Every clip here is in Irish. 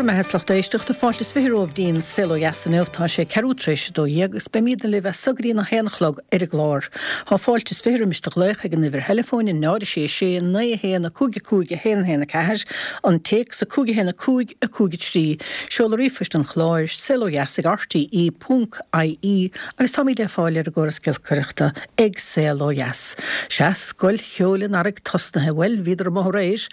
Bhur mbeatha is lucht éisteachta, fáilte is 20 romhaibh dtí'n Saol Ó Dheas inniu. Tá sé ceathrú tar éis 12 agus beimídne libh as so go dtí an 1 a chlog ar an gclár. Tá fáilte is 20 roimis do ghlaoch ag an uimhir theileafóin, 0 6 6 9 1 5 5 1 1 4, an téacs 5 1 5 5 3, seoladh ríomhphoist an chláir, saolodheas ag rte ponc ie agus táimíd le fáil ar an gcóras giolcaireachta ag Saol Ó Dheas. Sea, Scoil Cheoil an Earraigh tosnaithe, bhuel, bhíodar amuigh aréir.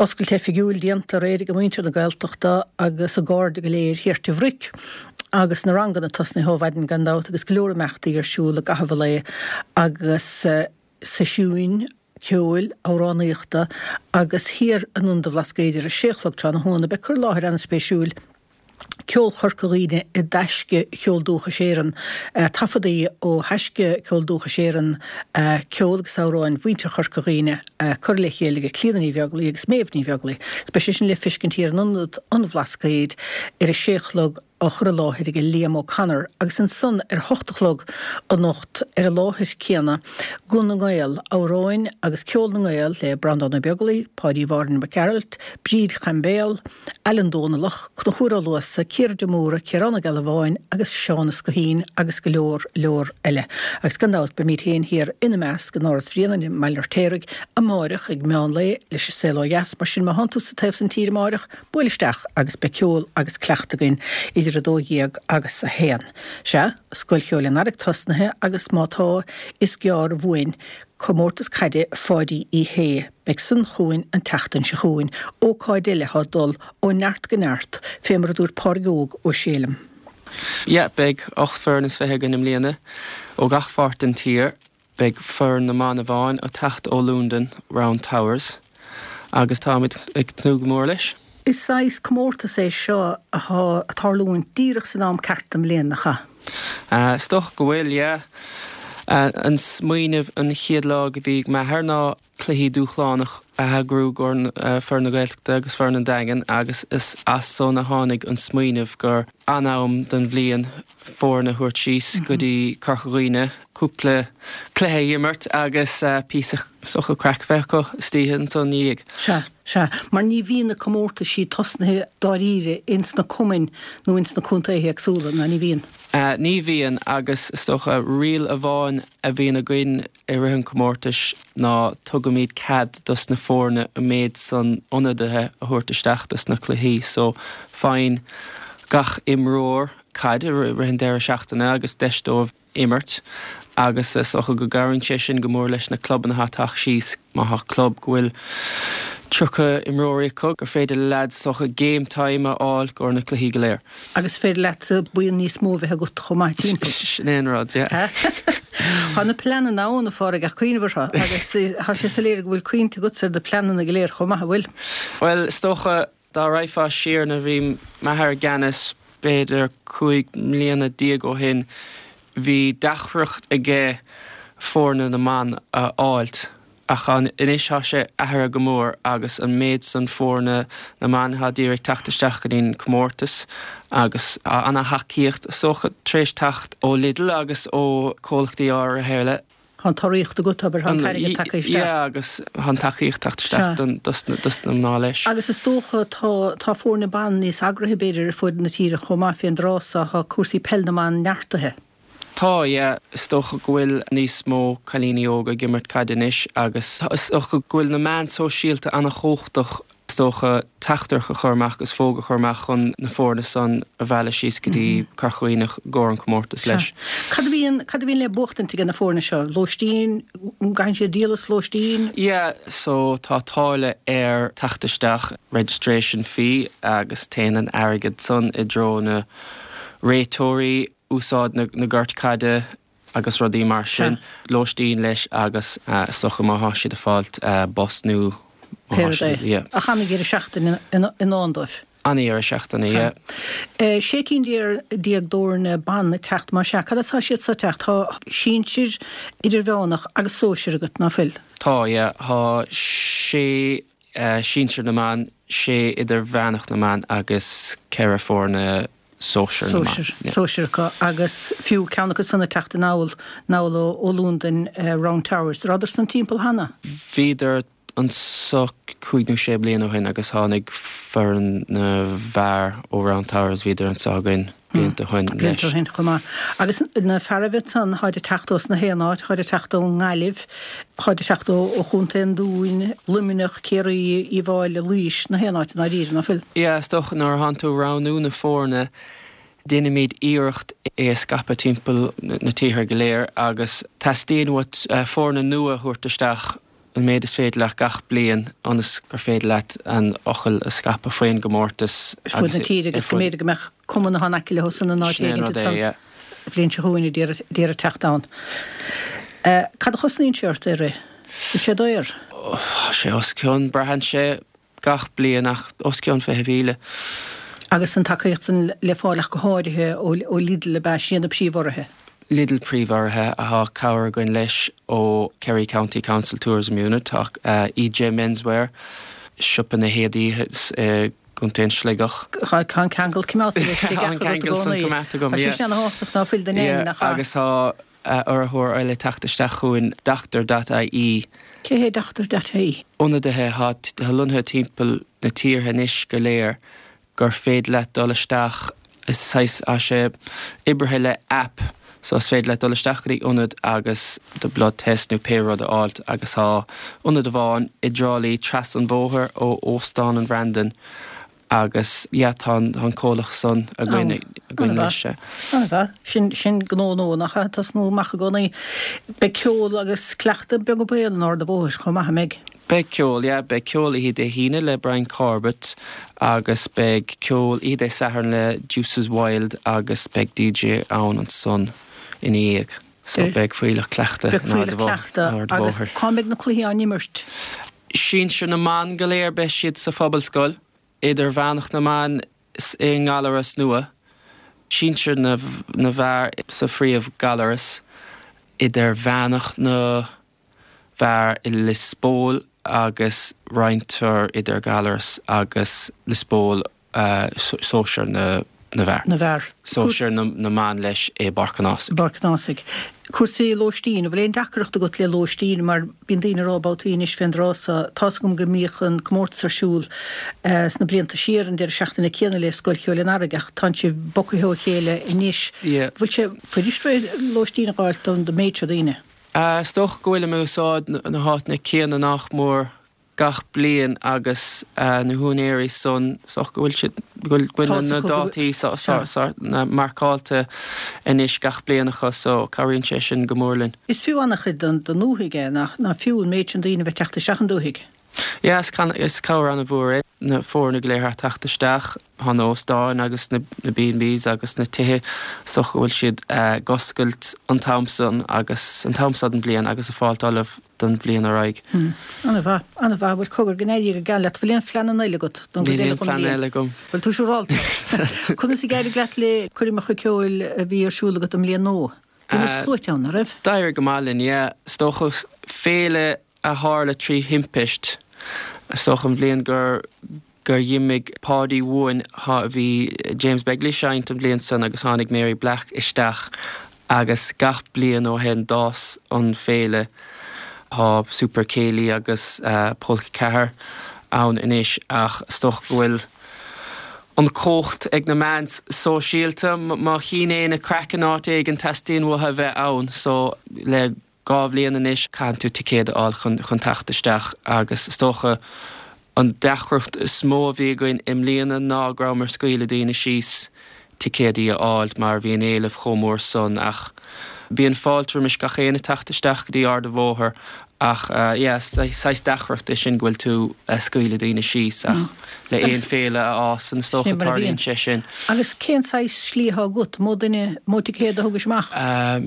Oscailt oifigiúil déanta aréir ag muintir na Gaeltachta agus a gcairde go léir thiar Tigh Bhric agus na ranganna tosnaithe ó mhaidin gan dabht agus go leor imeachtaí ar siúl i gcaitheamh an lae agus seisiúin ceoil, amhránaíochta agus thiar in Ionad an Bhlascaoid ar a sé a chlog tráthnóna beidh cur i láthair an-spéisiúil Ceol Chorca Dhuibhne i dTaisce Cheol Dúchais Éireann, taifeadaí ó Thaisce Ceol Dúchais Éireann, ceol agus amhráin mhuintir Chorca Dhuibhne curtha le chéile ag Clíodhna Ní Bheaglaoi agus Méabh Ní Bheaglaoi. Beidh sé sin le feiscint thiar in Ionad an Bhlascaoid ar a sé a chlog á chur i láthair ag Liam O'Connor agus ansan ar a hocht a chlog anocht ar an láthair céanna, Guth na nGael, amhráin agus ceol na nGael le Breandán Ó Beaglaoi, Páidí Mháirín Mac Gearailt, Bríd Chaimbéal, Alan Dónallach, Conchúr Ó Luasa, Ciara de Mórdha, Ciarán Ó Gealbháin agus Seán Ó Scoithín agus go leor, leor eile. Agus gan dabht beimíd féin thiar ina measc in Áras Bhrianain i mBaile an Fheirtéaraigh amáireach ag meán lae leis an Saol Ó Dheas, mar sin má thánn tú sa taobh san tíre amáireach, buail isteach agus beidh ceol agus cleacht againn idir 12 agus 1. Sea, Scoil Cheoil an Earraigh tosnaithe agus má tá, is gearr uainn Comórtas Caide Pháidí Uí Shé. Beidh san chugainn an tseachtain seo chugainn, ócáid eile atá ag dul ó neart go neart, fé mar a dúirt Pádraig Óg Ó Sé liom. Yeah, beidh 18 foireann is againn i mbliana ó gach pháirt den tír. Beidh foireann na mban amháin ag teacht ó Londain, Round Towers, agus táimid ag tnúth go mór leis. Is saghas comórtas é seo athá ag tarlúint díreach san am ceart den bhliain, nach ea? Is dócha go bhfuil, yeah. An smaoineamh an chéad lá go bhí ag m'athair ná cluichí dúshlánach a eagrú i gcomhair foireann na Gaeltachta agus foireann an Daingin agus is as san a tháinig an smaoineamh gur an-am den bhliain foireann a thabhairt síos go dtí Corca Dhuibhne, cúpla cluiche a imirt agus píosa is dócha craic a bheith acu istoíche ansan ina dhiaidh. Sea, sea, mar ní bhíonn na comórtaisí tosnaithe dáiríre ins na cumainn nó ins na contaetha éagsúla, ná ní bhíonn? Ní bhíonn agus is dócha riail amháin a bhíonn againn i rith an chomórtais ná tugaimid cead dos na foirne an méid san ionadaithe a thabhairt isteach dos na cluichí so faigheann gach imreoir caid i rith an deireadh seachtaine agus deis dóibh imirt agus is dócha go gcabhraíonn sé sin go mór leis na clubanna atá ag teacht síos. Má thá club go bhfuil 30 imreoirí acu gur féidir le leaids is dócha game time a fháil i gcomhair na cluichí go léir. Agus is féidir leatsa buíon níos mó a bheith agat chomh maith timpeall. Sin é an rud, yeah. Tá na pleananna ann, a Phádraig, ach cuimhneamh orthu agus tá sé soiléir go bhfuil cuimhne agatsa ar na pleananna go léir chomh maith, an bhfuil? Bhuel, is dócha dá raghfá siar nuair a bhí m'athair i gceannas, b'fhéidir 15 mbliana ó shin, bhí deacracht aige foirne na mban a fháilt. Ach anois tá sé athraithe go mór agus an méid san foirne na mban atá d'iarraidh teacht isteach go dtí'n comórtas agus tá ana-thacaíocht is dócha tar éis teacht ó Lidl agus ó comhlachtaí áirithe eile. Tá an t-urraíocht agat, abair, tá an t-airgead tagtha isteach. Yeah agus tá an tacaíocht teacht isteach dos na mná leis. Agus is dócha tá tá foirne ban níos eagraithe b'fhéidir ar fud na tíre chomh maith fén dtráth so, tá cúrsaí peil na mban neartaithe. Tá, yeah. Is dócha go bhfuil níos mó cailíní óga ag imirt caide anois agus is dócha go bhfuil na meáin sóisialta ana-chumhachtach, is dócha, teachtaireacht a chur amach agus fógra a chur amach chun na foirne san a mhealladh síos go dtí Corca Dhuibhne i gcomhair an comórtas leis. Cad a bhíonn, cad a bhíonn le buachtaint ag na foirne seo? Lóistín? An gcaitheann siad díol as lóistín? Yeah, so tá táille ar teacht isteach, registration fee, agus téann an airgead san i dtreo na réiteoirí, úsáid na gort caide agus rudaí mar sin, lóistín leis agus is dócha má thá siad ag fáilt bus nó má thá siad, yeah. Ach ana-dheireadh seachtaine i ndán dóibh. Ana-dheireadh seachtaine, yeah. 16 cinn d'fhoirne ban ag teacht, más ea. Cad as tá siad so ag teacht? Tá sinsir, idirmheánach agus sóisir agat, ná fuil? Tá, yeah. Tá sé sinsir na mban, sé idirmheánach na mban agus ceithre foirne sóisir na mban. Sóisir acu agus fiú ceann acu san ag teacht anall anall ó Londain, Round Towers. Rabhadar san timpeall cheana? Bhíodar. anso cúig nó sé bliana ó shin agus tháinig foireann na bhfear ó Round Towers, bhíodar anso againn blianta ó shin leis. Blianta ó shin chomh maith. Agus na fearaibh ansan, tháid ag teacht ós na haon áit, tháid ag teacht ón nGaillimh, tháid ag teacht ó Chontae an Dúin, Luimneach, Ciarraí, Uíbh Fháilí, Laois, na haon áit i ndáiríre, ná fuil? Yeah, is dócha nuair a thánn tú ag roghnú na foirne, Déanaimid iarracht é a scaipeadh timpeall na tíortha go léir agus teastaíonn uait foirne nua a thabhairt isteach an méid is féidir leat gach bliain ionas gur féidir leat an fhocal a scaipeadh faoin gcomórtas ar fud na tíre agus go mb'fhéidir go mbeadh cumann atá in aice leo san in áit éigin ansan an bhliain seo chugainn a d'iarraidh teacht ann. Cad a chosnaíonn sé ort é a rith? Bhfuil sé daor? Tá sé os cionn, braitheann sé. gach bliain ach os cionn 20,000. Agus an tacaíocht san le fáil ach go háirithe ó Lidl ab ea? Sin iad na príomhurraithe. Lidl príomhurraithe tá cabhair againn leis ó Kerry County Council Tourism Unit, tá EJ Menswear, siopa na héadaí i gContae an Sligeach. Tá an ceangal coimeádta leis ag agat i gcónaí. Tá sé sin ana-thábhachtach ná fuil don éinne nach ea? Agus tá urraitheoir eile ag teacht isteach chugainn, Doctor dot ie. Cé hé Doctor dot ie? Ionadaithe atá lonnaithe timpeall na tíortha anois go léir gur féidir leat dul isteach, is saghas, tá sé oibrithe le app so is féidir leat dul isteach go dtí ionad agus do blood test nó pé rud a fháilt agus tá ionad amháin i dTrá Lí trasna an bhóthair ó Óstán an Bhrandan Agus yeah tá an comhlacht san againn againn leis. An-mhaith. Sin, sin gnó nua nach ea? Tosnú amach i gcónaí. Beidh ceol agus cleachtadh beag an baol in Ard a' Bhóthair chomh maith, an mbeidh? Beidh ceol, yeah. Beidh ceol oíche Dé hAoine le Brian Corbett agus beidh ceol oíche Dé Sathairn le Deuces Wild agus beidh DJ ann ansan ina dhiaidh. So beidh fuílleach cleachta in Ard a' Bhóthair. Agus cá mbeidh na cluichí á n-imirt? Sinsir na mban go léir beidh siad sa Phobalscoil, Idirmheánach na mban i nGallaras nua, Sinsir na bhfear sa phríomh-Ghallaras, Idirmheánach na bhfear i Lios Póil agus roinntear idir Gallaras agus Lios Póil sóisear na bhfear. na bhfear. Sóisear na mban leis i bPáirc an Ásaigh. bPáirc an Ásaigh. Cúrsaí lóistín, an bhfuil aon deacracht agat le lóistín mar bíonn daoine ag rá babhtaí anois fén dtráth so, tá's agam go mbíodh an comórtas ar siúl sna blianta siar an deireadh seachtaine céanna le Scoil Cheoil an Earraigh ach tánn sibh bogtha ó chéile anois. Bhfuil sé fuirist lóistín a dh'fháilt don méid seo daoine? Is dócha go bhfuilim ag úsáid na háiteanna céanna nach mór gach bliain agus na húinéirí san, is dócha go bhfuil siad, go bhfuil na dátaí marcáilte anois gach bliain acu so cabhraíonn sé sin go mór linn. Is fiú an-chuid don ndúthaigh é, nach fiú an méid sin daoine a bheith teacht isteach an dúthaigh? Yeah, is cabhair an-mhór é na foirne go léir a theacht isteach, tá na hóstáin agus na B&Bs agus na tithe, is dócha go bhfuil siad ag oscailt an t-am san agus an t-am seo den bhliain agus ag fáilt ullamh don bhliain ar aghaidh. An-mhaith, an-mhaith. Bhuel, cogar, go n-éirí go geal leat. Bhfuil aon phleananna eile agat don gcuid eile den bhliain? Níl aon phlean eile agam. Bhfuil tú siúrálta? Conas a d'éirigh leat le coirmeacha ceoil a bhí ar siúl agat i mbliain nua? Bhí na sluaite ann, an raibh? D'éirigh go maith linn, yeah. Is dócha féile a tharla trí thimpist, is dócha an bhliain gur gur dh'imigh Páidí uainn bhí James Begley ag seinnt an bhliain san agus tháinig Mary Black isteach agus gach bliain ó shin d'fhás an féile. Tá Super Céilí agus Polca 4 ann anois ach is dócha go bhfuil an chumhacht ag na meáin sóisialta. Má chíonn éinne craic in áit éigin teastaíonn uathu a bheith ann so le 2 bhliain anois, caitheann tú ticéad a fháil chun chun teacht isteach agus is dócha an deacracht is mó a bhí againn i mbliana ná go rabhamar ag scaoileadh daoine síos ticéadaí a fháil mar bhí an éileamh chomh mór san ach bíonn fáilte roimis gach éinne teacht isteach go dtí Ard an Bhóthair ach yeah saghas deacracht é sin go bhfuil tú ag scaoileadh daoine síos ach le aon féile a fhásann is dócha tarlaíonn sé sin. Agus cén saghas slí atá agat? Mó duine, mó ticéad a thugais amach?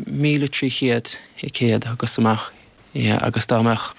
1,300 ticéad a thugas amach, yeah, agus dá mbeadh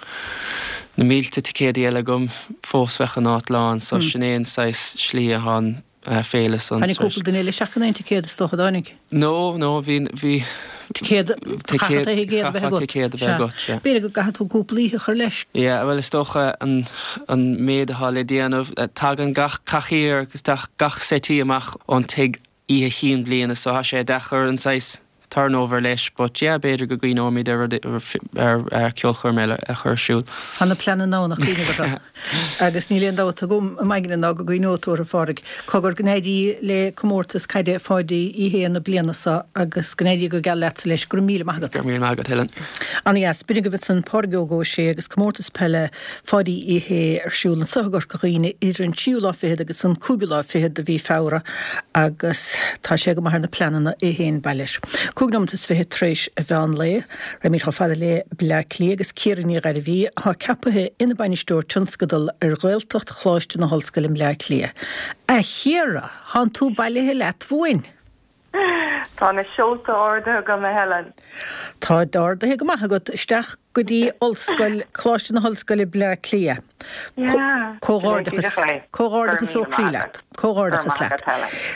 na mílte ticéadaí eile agam fós bheadh an áit lán, so sin é an saghas slí atá an féile san. Tháinig cúpla duine eile isteach gan aon ticéad is dócha, dtáinig? No, no, bhí, bhí. Ticéad, chaithfeá ticéad a bheith agat. Chaithfeá ticéad a bheith agat, sea. B'fhéidir go gcaithfidh tú cúpla oíche a chur leis. Yeah, bhuel is dócha an, an méid atá le déanamh, tagann gach cathaoir agus gach settee amach ón tigh oíche chinn bliana so tá sé deacair an saghas. Turnover leis but yeah b'fhéidir go gcuimhneoimid ar rud ar ceolchoirm eile a chur ar siúl. Tá na pleananna ann a chuimhneamh orthu agus níl aon dabht agam i m'aigne ná go gcuimhneoidh tú orthu, a Phádraig. Cogar go n-éirí le comórtas caide Pháidí Uí Shé na bliana seo agus go n-éirí go geal leatsa leis. Go raibh míle maith agat. Go raibh míle maith agat, Helen. Ana-dheas. B'in agaibh ansan Pádraig Óg Ó Sé agus comórtas peile Pháidí Uí Shé ar siúl anso i gCorca Dhuibhne idir an tríú lá fichead agus an cúigiú lá fichead de mhí Feabhra agus tá sé go maith ar na pleananna é féin, bail air. 25 nóimeat tar éis an mheán lae, raghaimid chomh fada le Bleá Cliath agus Ciara Ní Ghairbhí atá ceapaithe ina Bainisteoir Tionscadal ar Ghaeltacht Choláiste na hOllscoile i mBleá Cliath. A Chiara, thánn tú bailithe leat uainn! Tá na seolta ardaithe agam, a Helen. Táid ardaithe go maith agat isteach go dtí Ollscoil, Coláiste na hOllscoile Bleá Cliath. Comhghairdeachas, comhghairdeachas ó chroí leat. Comhghairdeachas leat.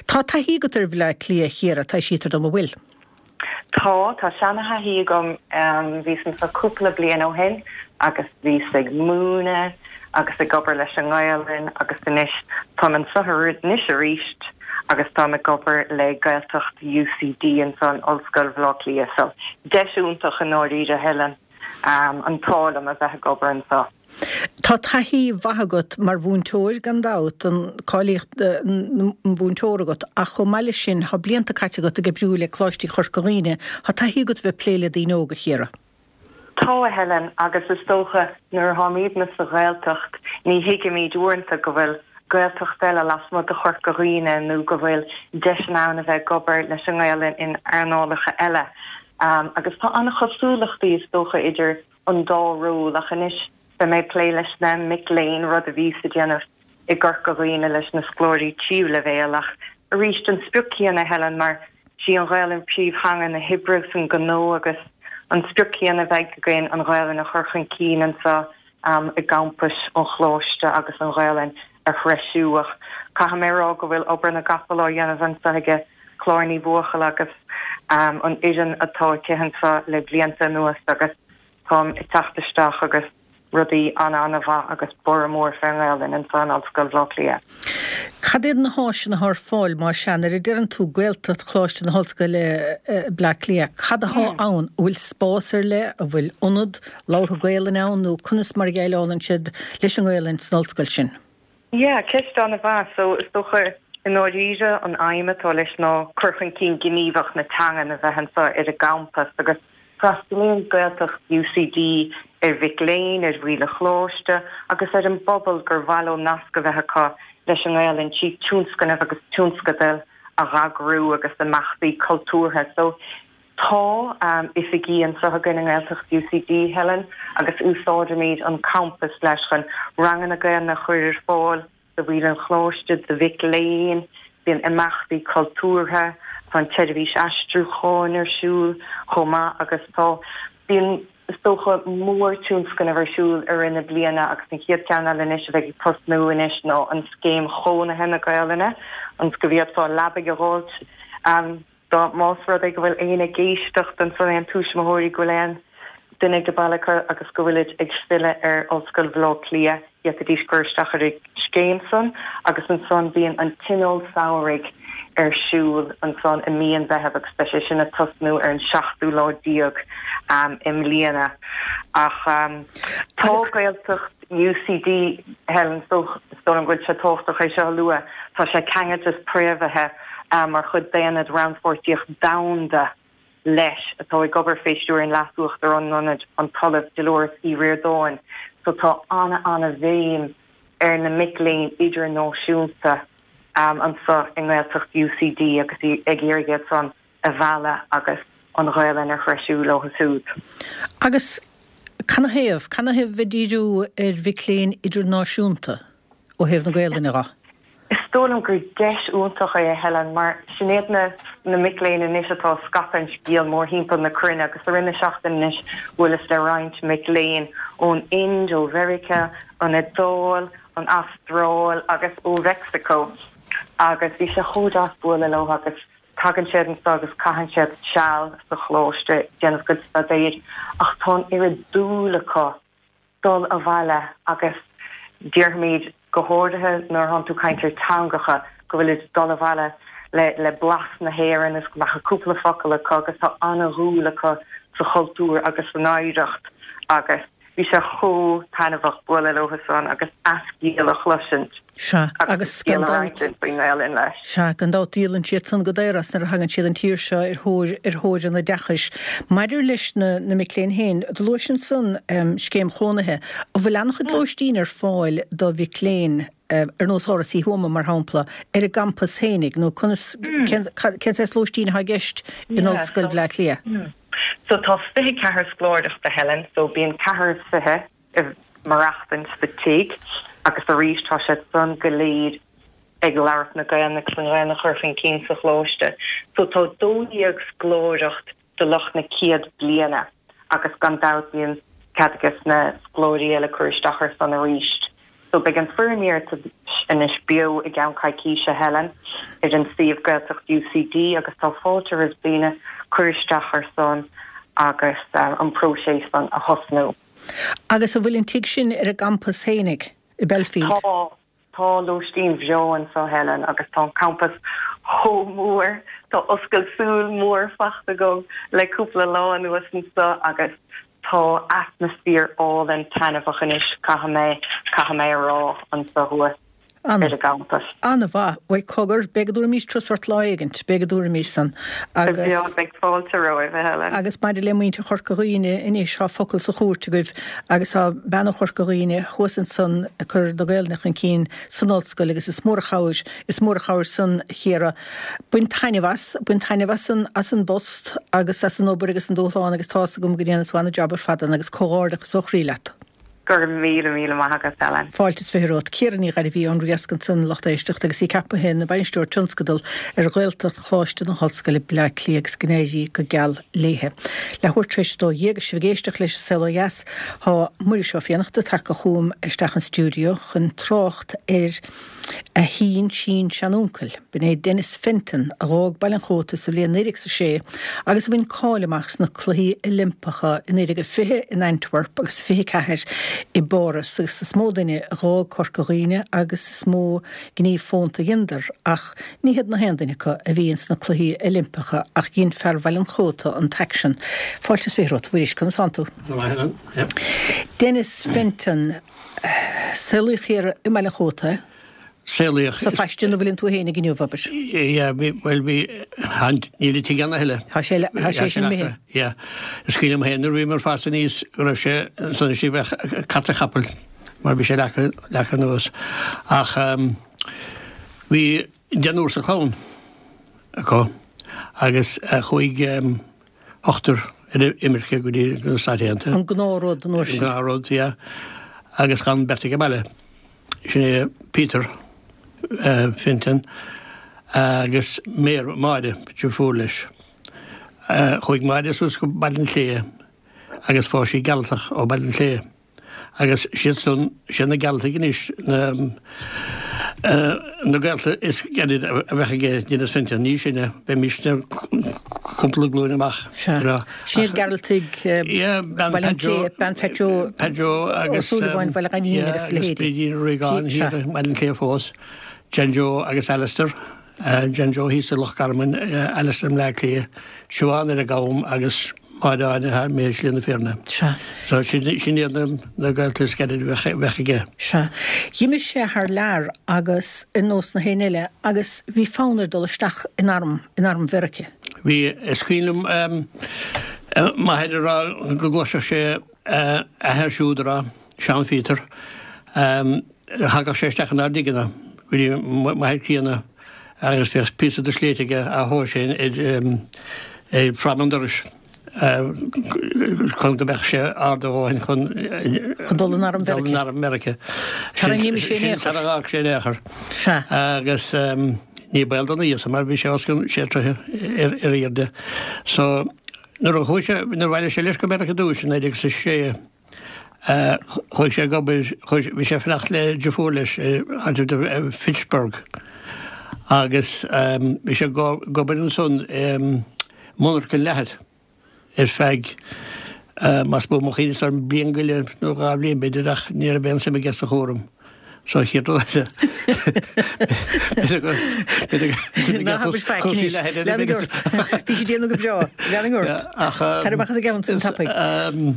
Tá taithí agat ar Bhleá Cliath, a Chiara, taibhsítear dom, an bhfuil? Tá, tá seana-thaithí agam. Bhíos anseo cúpla bliain ó shin agus bhíos ag múineadh agus ag obair leis an nGaelainn agus anois táim anseo anois arís agus táim ag obair le Gaeltacht UCD anseo in Ollscoil Bhaile Átha Cliath. So deis iontach i ndáiríre, Helen, an t-ádh liom a bheith ag obair anseo. Tá taithí mhaith agat mar mhúinteoir gan dabht, an cáilíocht an mhúinteora agat, ach chomh maith leis sin tá blianta caite agat ag oibriú le Coláistí Chorca Dhuibhne. Tá taithí agat a bheith ag plé le daoine óga, a Chiara. Tá, a Helen, agus is dócha nuair atáimidne sa Ghaeltacht ní thuigimid uaireanta go bhfuil Gaeltacht eile lasmuigh de Chorca Dhuibhne nó go bhfuil deiseanna ann a bheith ag obair leis an nGaelainn in earnálacha eile. Agus tá an-chosúlachtaí is dócha idir an dá ról ach anois beidh mé ag plé leis na mic léinn, rud a bhíos ag déanamh i gCorca Dhuibhne leis na scoláirí tríú leibhéal ach arís an sprioc céanna Helen mar sí an Ghaelainn príomhtheanga na hoibre agus an gnó agus an sprioc céanna a bheidh againn an Ghaelainn a chur chun cinn anseo i gcampais an Choláiste agus an Ghaelainn a threisiú ach caithfidh mé a rá go bhfuil obair na gcapall á dhéanamh anseo aige Clár Ní Bhuachalla agus an fhoireann atá aici anseo le blianta anuas agus táim ag teacht isteach agus rudaí an-an-mhaith agus borradh mór fén nGaelainn anseo in Ollscoil Bhaile Átha Cliath. Cad iad na háiseanna atá ar fáil má sea, nuair a deireann tú Gaeltacht Choláiste na hOllscoile Bleá Cliath, cad atá ann? An bhfuil spás ar leith, an bhfuil ionad labhartha Gaelainne ann nó conas mar a dhéileálann siad leis an nGaelainn san ollscoil sin? Yeah, ceist an-mhaith. So, is dócha, i ndáiríre, an aidhm atá leis ná cur chun cinn gníomhach na teangan a bheith anseo ar an gcampas agus freastalaíonn Gaeltacht UCD ar mhic léinn, ar bhaill an choláiste agus ar an bpobal gur mhaith leo nasc a bheith acu leis an nGaelainn trí tionscnaimh agus tionscadail a dh'eagrú agus imeachtaí cultúrtha. So, Tá oifigí anseo againn i nGaeltacht UCD, Helen, agus úsáidimid an campas leis chun ranganna Gaelainne a chur ar fáil do bhaill an choláiste, do mhic léinn, bíonn imeachtaí cultúrtha, tá an tseirbhís aistriúcháin ar siúl chomh maith agus tá, bíonn, is dócha, mórtionscnamh ar siúl i rith na bliana agus an chéad cheann eile anois a bheidh ag tosnú anois ná an Scéim Chónaithe na Gaelainne, ionas go bhféadfá leabaidh a dh'fháilt. Dá más rud é go bhfuil éinne ag éisteacht ansan, aon tuismitheoirí, go bhfuil aon duine ag baile acu agus go bhfuilid ag filleadh ar Ollscoil Bhaile Átha Cliath, d'fhéadfaidís cur isteach ar an scéim san agus ansan bíonn an Tionól Samhraidh ar siúl ansan i mí an Mheithimh agus beidh sé sin ag tosnú ar an seachtú lá déag i mbliana. Ach tá Gaeltacht UCD, Helen, is dóigh liom go bhfuil sé tábhachtach é seo a lua, tá sé ceangailte is préamhaithe mar chuid d'Aonad Rannpháirtíocht Domhanda leis, atá ag obair fé stiúir an Leas-Uachtarán an Ionaid, an tOllamh Dolores Uí Ríordáin. So tá ana-ana-bhéim ar na mic léinn idirnáisiúnta anseo i nGaeltacht UCD agus ag iarraidh iad san a mhealladh agus an Ghaelainn a threisiú leo siúd. Agus canathaobh, canathaobh bheith ag díriú ar mhic léinn idirnáisiúnta ó thaobh na Gaelainne dho? Is dóigh liom gur deis iontach é, a Helen, mar sin iad na na mic léinn anois atá ag scaipeadh an scéil mórthimpeall na cruinne agus i rith na seachtaine anois bhuaileas le roinnt mic léinn ón Ind, ó Mheiriceá, an Iodáil, an Astráil agus ó Mheicsiceo agus bhí sé chomh deas bualadh leo agus Tagann siad anseo agus caitheann siad seal sa choláiste ag déanamh a gcuid staidéir ach tá an oiread dúil acu dul abhaile agus déarfaimid, go háirithe nuair atánn tú ag caint ar teangacha, go bhfuilid ag dul abhaile. le le blas na hÉireann is go mbeadh cúpla focal acu agus tá ana-dhúil acu sa chultúr agus san oidhreacht agus bhí sé chomh taitneamhach bualadh leo san agus a scéal a chloisint Sea, agus agus a scéal gan a dabht. roinnt faoin nGaelainn leis. Sea, gan dabht díolann siad san go daor as nuair a thagann siad an tír seo ar thóir ar thóir an oideachais. Maidir leis na na mic léinn féin, do luais ansan scéim chónaithe. An bhfuil an-chuid lóistín ar fáil do mhic léinn? ar nós Áras Uí Thuama, mar shampla, ar an gcampas fhéinig, nó conas, cén saghas lóistín atá i gceist in Ollscoil Bhaile Átha Cliath? So tá 24 scoláireacht, a Helen, so bíonn ceathrar is fiche ag maireachtaint sa tigh agus arís tá siad san go léir ag labhairt na Gaelainne agus an Ghaelainn a chur chun cinn sa choláiste. So tá 12 scoláireacht do lucht na céad bliana agus gan dabht bíonn cead ages na scoláirí eile cur isteach ar san arís. So beidh an foirm iarratais anois beo i gceann coicíse, Helen, ar an suíomh Gaeltacht UCD agus tá fáilte roimh daoine cur isteach ar san agus an próiseas san a thosnú. Agus an bhfuil an tigh sin ar an gcampas fhéinig i Belfield? Tá. Tá lóistín bhreá anso, Helen, agus tá an campas chomh mór. Tá oscailt súl mór fachta agam le cúpla lá anuas anso agus tá atmaisféar álainn taitneamhach anois, caithfidh mé, caithfidh mé a rá, anso thuas ar an gcampas. An-mhaith. Bhuel, cogar, beidh go dtabharfaimís turas ort lá éigint, beidh go dtabharfaimís san. Agus. Beidh fáilte romhaibh, a Helen. Agus maidir le muintir Chorca Dhuibhne anois, tá focal sa chúirt agaibh agus tá bean ó Chorca Dhuibhne thuas ansan ag cur na Gaelainne chun cinn san ollscoil agus is mór an chabhair, is mór an chabhair san, a Chiara. Bain taitneamh as, bain taitneamh as an, as an bpost agus as an obair agus an dúshlán agus tá's agam go ndéanfaidh tú an-jab ar fad ann agus comhghairdeachas ó chroí leat. Go raibh míle, míle maith agat, Helen. Fáilte is fiche romhat. Ciara Ní Ghairbhí ón Riasc ansan, lucht éisteachta, agus í ceaptha ina Bainisteoir Tionscadal ar Ghaeltacht Choláiste na hOllscoile, Bleá Cliath agus go n-éirí go geal léithe. Leathuair tar éis a 12 agus sibh ag éisteacht leis an Saol Ó Dheas, tá Muiris Ó Fiannachta tagtha chugam isteach an stiúideo chun trácht ar a shín-sín-seanuncail. B'in é Denis Fenton, a dh'fhág Baile an Chóta sa bhliain 1906 agus a bhain cáil amach sna Cluichí Oilimpeacha i 1920 in Antwerp agus 24 i bPáras agus is mó duine a dh'fhág Corca Dhuibhne agus is mó gníomh fónta a dheineadar ach ní hiad na haon duine acu a bhí ins na Cluichí Oilimpeacha ach dhein fear Bhaile an Chóta an t-aicsean. Fáilte is fiche romhat, a Mhuiris, conas tánn tú? Go maith, Helen. Denis Fenton, saolaíodh thiar i mBaile an Chóta. Saolaíodh. Sa phaiste ina bhfuileann tú féin inniu, abair. Yeah, bhí, bhuel bhí, níl an tigh ann a thuilleadh. Tá sé, tá sé sin imithe. Yeah. Is cuimhin liom féin nuair a bhíomar ag fás aníos go raibh sé ansan istigh bheadh carta chapaill mar bhí sé leagtha, leagtha anuas. Ach bhí deichniúr sa chlann acu agus chuaigh ochtar ar imirce go dtí na Stáit Aontaithe. An gnáthrud an uair sin. An gnáthrud, yeah. Agus d'fhan beirt ag an mbaile. Sin é Peter Fenton agus Máire, deirfiúr leis. Chuaigh Máire suas go Baile an tSléibhe agus phós sí Gearaltach ó Bhaile an tSléibhe. Agus siad san, siad na Gearaltaigh anois na na gaolta is gaire a bheadh aige Denis Fenton, ní sinne, bheimisne cúpla glúin amach. Sea. Sin iad Gearaltaigh Bhaile an tSléibhe, bean Phat Joe Pat Joe agus Ó Súilleabháin Bhaile Ghainín agus a leithéidí. Brídín Regan thiar i mBaile an tSléibhe fós, John Joe agus Alistair, John Joe thíos i Loch Garman, Alistair i mBleá Cliath, Siobhán ar an gCam agus Máire Áine thar i Slí na Fírinne. Sea. So sin iad na gaolta is gaire a bheadh aige. Sea. Dh'imigh sé thar lear agus ar nós na héinne eile agus bhí fonn air dul isteach in arm, in arm Mheirice. Bhí, is cuimhin liom m'athair ag rá go gcloisfeadh sé a athair siúd ag rá, Seán Phíotair, thagadh sé isteach inár dtigeanna, go dtí m'athair críonna agus bheadh píosa de shléit aige á thomhas féin ar fráma an dorais chun go mbeadh sé ard a dhóthain chun Chun dul in arm dul in arm Mheirice. Sara n-imigh sé in aon chor. Sara bhfág sé in aon chor. Sea. Agus ní baol dona íosa mar bhí sé os cionn sé troithe ar airde. So nuair a chuaigh sé, nuair a bhailigh sé leis go Meiriceá ar dtús i 1906, chuaigh sé ag obair, chuaigh, bhí sé ag fanacht le deirfiúr leis i áit Fitchburg agus bhí sé ag obair ansan i monarcha leathair. ar feadh, más buan mo chuimhne, is dóigh liom bliain go leith nó dhá bhliain b'fhéidir ach ní raibh aon suim aige sa chúram. So an chéad rud eile. Ná habair faic anois. Lean ort. Bhí sí ag déanamh go breá. Lean ort. Tar amach as an gceann san tapaidh.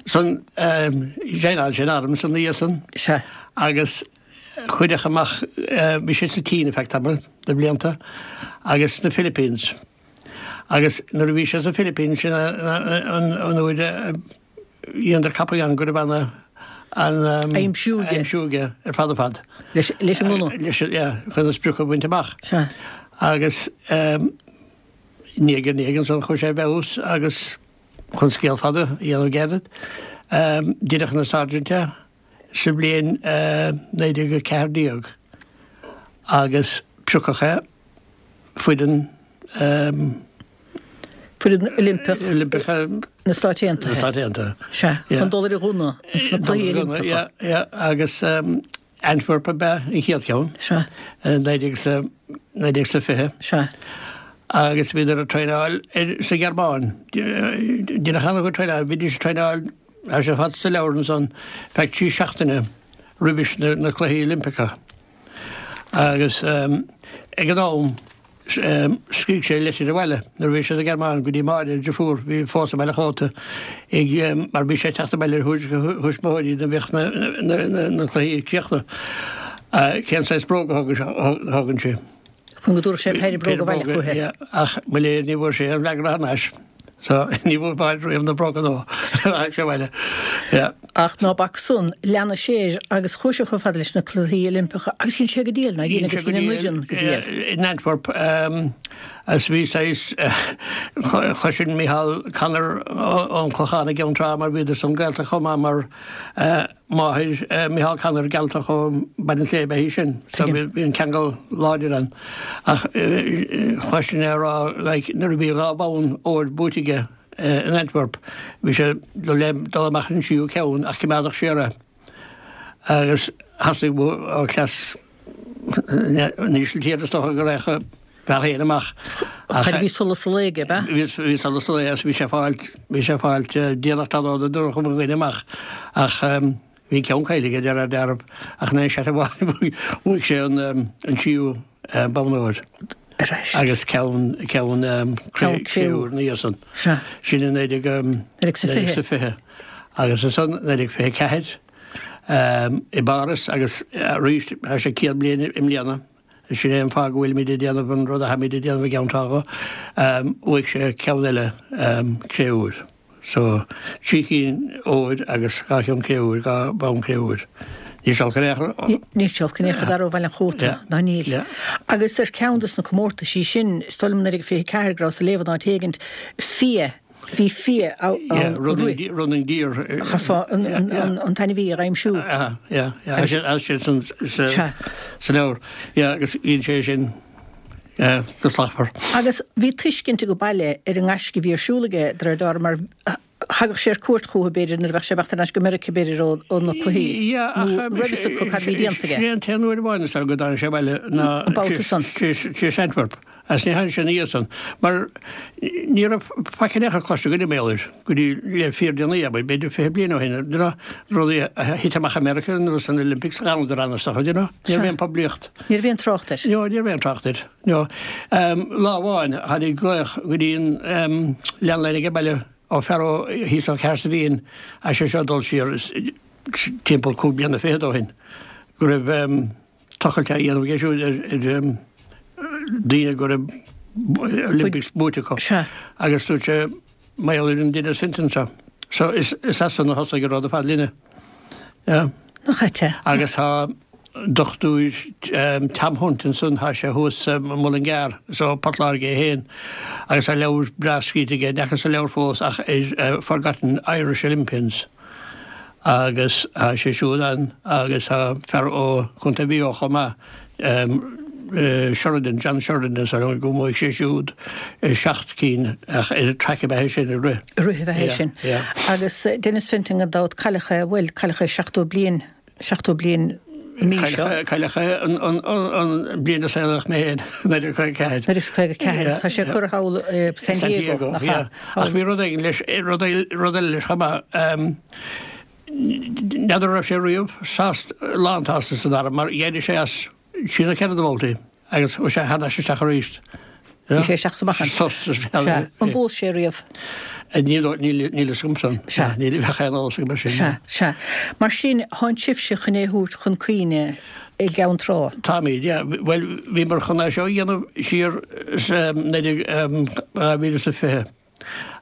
San joineáil sé an arm san dhiaidh san. Sea. Agus cuireadh amach, bhí sé sa tSín ar feadh tamaill de bhlianta agus sna Philippines. Agus nuair a bhí sé sa Philippines sin an uair a dheineadar ceapadh ann go raibh an an Aimsiú aige. Aimsiú aige ar fad ar fad. Leis leis an ngunna. Leis an, yeah, chun an sprioc a bhaint amach. Sea. Agus ndiaidh ar ndiaidh ansan chuaigh sé i bhfeabhas agus chun scéal fada a dhéanamh gairid, deineadh ina sergeant é sa bhliain 1914 agus piocadh é foireann Foireann Oilimpeach Oilimpeach na Stáit Aontaithe. Na Stáit Aontaithe. Sea, chun dul ar an ghunna sna Cluichí Oilimpeacha. Yeah, yeah, agus Antwerp ab ea an chéad cheann. Sea. 1920. Sea. Agus bhíodar ag traenáil sa Ghearmáin. Deineadh an-chuid traenáil, bhídís ag traenáil, tá sé ar fad sa leabhar ansan, feadh 3 seachtaine roimhis na Cluichí Oilimpeacha. Agus ag an am, scrígh sé litir abhaile nuair a bhí sé sa Ghearmáin go dtí Máire, a dheirfiúr, bhí fós i mBaile an Chóta, ag, mar bhí sé ag teacht abhaile ar thuairisc a thuismitheoirí nuair a bhíodh na cluichí críochnaithe, cén saghas bróga a thógann sé. Chun go dtabharfadh sé péire bróg abhaile chuici. Ach mo léir ní bhfuair sé aon fhreagra thar n-ais. So, ní bhfuair Máire riamh na bróga nuair a tháinig sé abhaile. Yeah. Ach ná bac san, lean sé air agus chuaigh sé chomh fada leis na Cluichí Oilimpeacha agus dhein sé go diail, nár dhein, agus dhein an fhoireann go diail. In Antwerp, agus bhí saghas, chloisinn Micheál Connor ón Clochán i gCeann Trá mar bhíodar san gaolta chomh maith mar máthair Micheál Connor Gealtach ó Baile an tSléibhe í sin so bhí an ceangal láidir ann. Ach chloisinn é ag rá like nuair a bhí 2 bhonn óir buaite aige in Antwerp bhí sé le dul amach ar an tríú ceann ach coimeádadh siar é agus theastaigh ó chleas na hÍsiltíre is dócha go raghadh a bhfear féin amach. Ach bhí solas an lae aige, ab ea? Bhí solas an lae agus bhí sé ag fáilt, bhí sé ag fáilt déanach tráthnóna nuair a chuaigh mo dhuine amach ach bhí ceann caillte aige de réir dealraimh ach in aon seat amháin bhuaigh sé an tríú bonn óir agus ceann, ceann cré-úr ina dhiaidh san. Sin i 1920 agus ansan 1924. i bPáras agus arís tá sé 100 bliain i mbliana, sin é an fáth go bhfuilimid ag déanamh an rud atháimid ag déanamh i gCeann Trá. Bhuaigh sé ceann eile cré-úir. So, trí chinn óir agus dhá cheann cré-úir, dhá bhonn cré-úir. Níl sé olc in aon chor. Níl sé olc in aon chor d'fhear ó Bhaile an Chóta, ná níl. Agus ar cheann de na comórtaisí sin, is dóigh liom 1924 go rabhas ag léamh in áit éigint, fia, Bhí fia ann. Running deer. Chaithfeá an t-ainmhí a aimsiú. Yeah, yeah. Tá sé sa leabhar. Yeah, agus bhíonn sé sin go slachtmhar. Agus bhí tuiscint ag an baile ar an ngaisce a bhí ar siúl aige, de réir dealraimh, mar thagadh sé ar cuairt chucu, b'fhéidir, nuair a bheadh sé ag imeacht thar n-ais go Meiriceá, b'fhéidir, ó na cluichí, nó raibh fhios acu cad a bhí déanta aige. Sin é an t-aon uair amháin is dóigh go dtáinig sé abhaile ná tar éis Antwerp. Agus ní tháinig sé ina dhiaidh san, mar ní raibh faic in aon chor cloiste againn mar gheall air go dtí le fíordhéanaí, abair, b'fhéidir 20 bliain ó shin, you know, rudaí a thit amach i Meiriceá nó san Olympics, d'fhanadar ann is dócha, you know. Ní raibh aon poiblíocht. Ní raibh aon trácht air. No, ní raibh aon trácht air, no. Lá amháin, tháinig glaoch go dtí an landline ag an baile ó fear ó thíos ó Chahersiveen, tá sé seo ag dul siar timpeall cúig bliana fichead ó shin, go raibh, tochailt á dhéanamh aige siúd ar daoine go raibh Olympics buaite acu. Agus dúirt sé, mar gheall ar an Denis Fintan seo. So is as san a thosaigh an rud ar fad linne. Yeah. Nach ait é? Agus tá Dochtúir Tom Hunt ansan, tá sé thuas i Mullingar, is ó Port Láirge é féin, agus tá leabhar breá scríte aige, n'fheacas an leabhar fós ach ar Forgotten Irish Olympians. Agus tá sé siúd ann agus tá fear ó Chontae Mhaigh Eo chomh maith, Sheridan, John Sheridan is ainm go mbuaigh sé siúd seacht cinn ach ar an track ab ea é sin, ag rith. Ag rith ab ea é sin. Agus Denis Fintan gan dabht, cailleadh é, bhuel, cailleadh é 70 bliain, 70 bliain an mhí seo. Cailleadh é an bliain a saolaíodh mé féin, 1954. 1954, tá sé curtha thall i San Diego, nach ea? Ach bhí rud éigin leis, rud eile leis chomh maith. N'fheadar an raibh sé riamh sásta, lánsásta san arm mar d'éirigh sé as trí nó ceithre de bhabhtaí agus chuaigh sé thar n-ais isteach arís. Bhí sé isteach is amach ann. Sos. Sea. An bpós sé riamh? Níl níl níl fhios agam san. Sea. Níl bheadh aon eolas agam ar sin. Sea, sea. Mar sin, thánn sibhse chun é a thabhairt chun cuimhne i gCeann Trá. Táimid, yeah. Bhuel, bhíomar chun é seo a dhéanamh siar sa 19, 2020.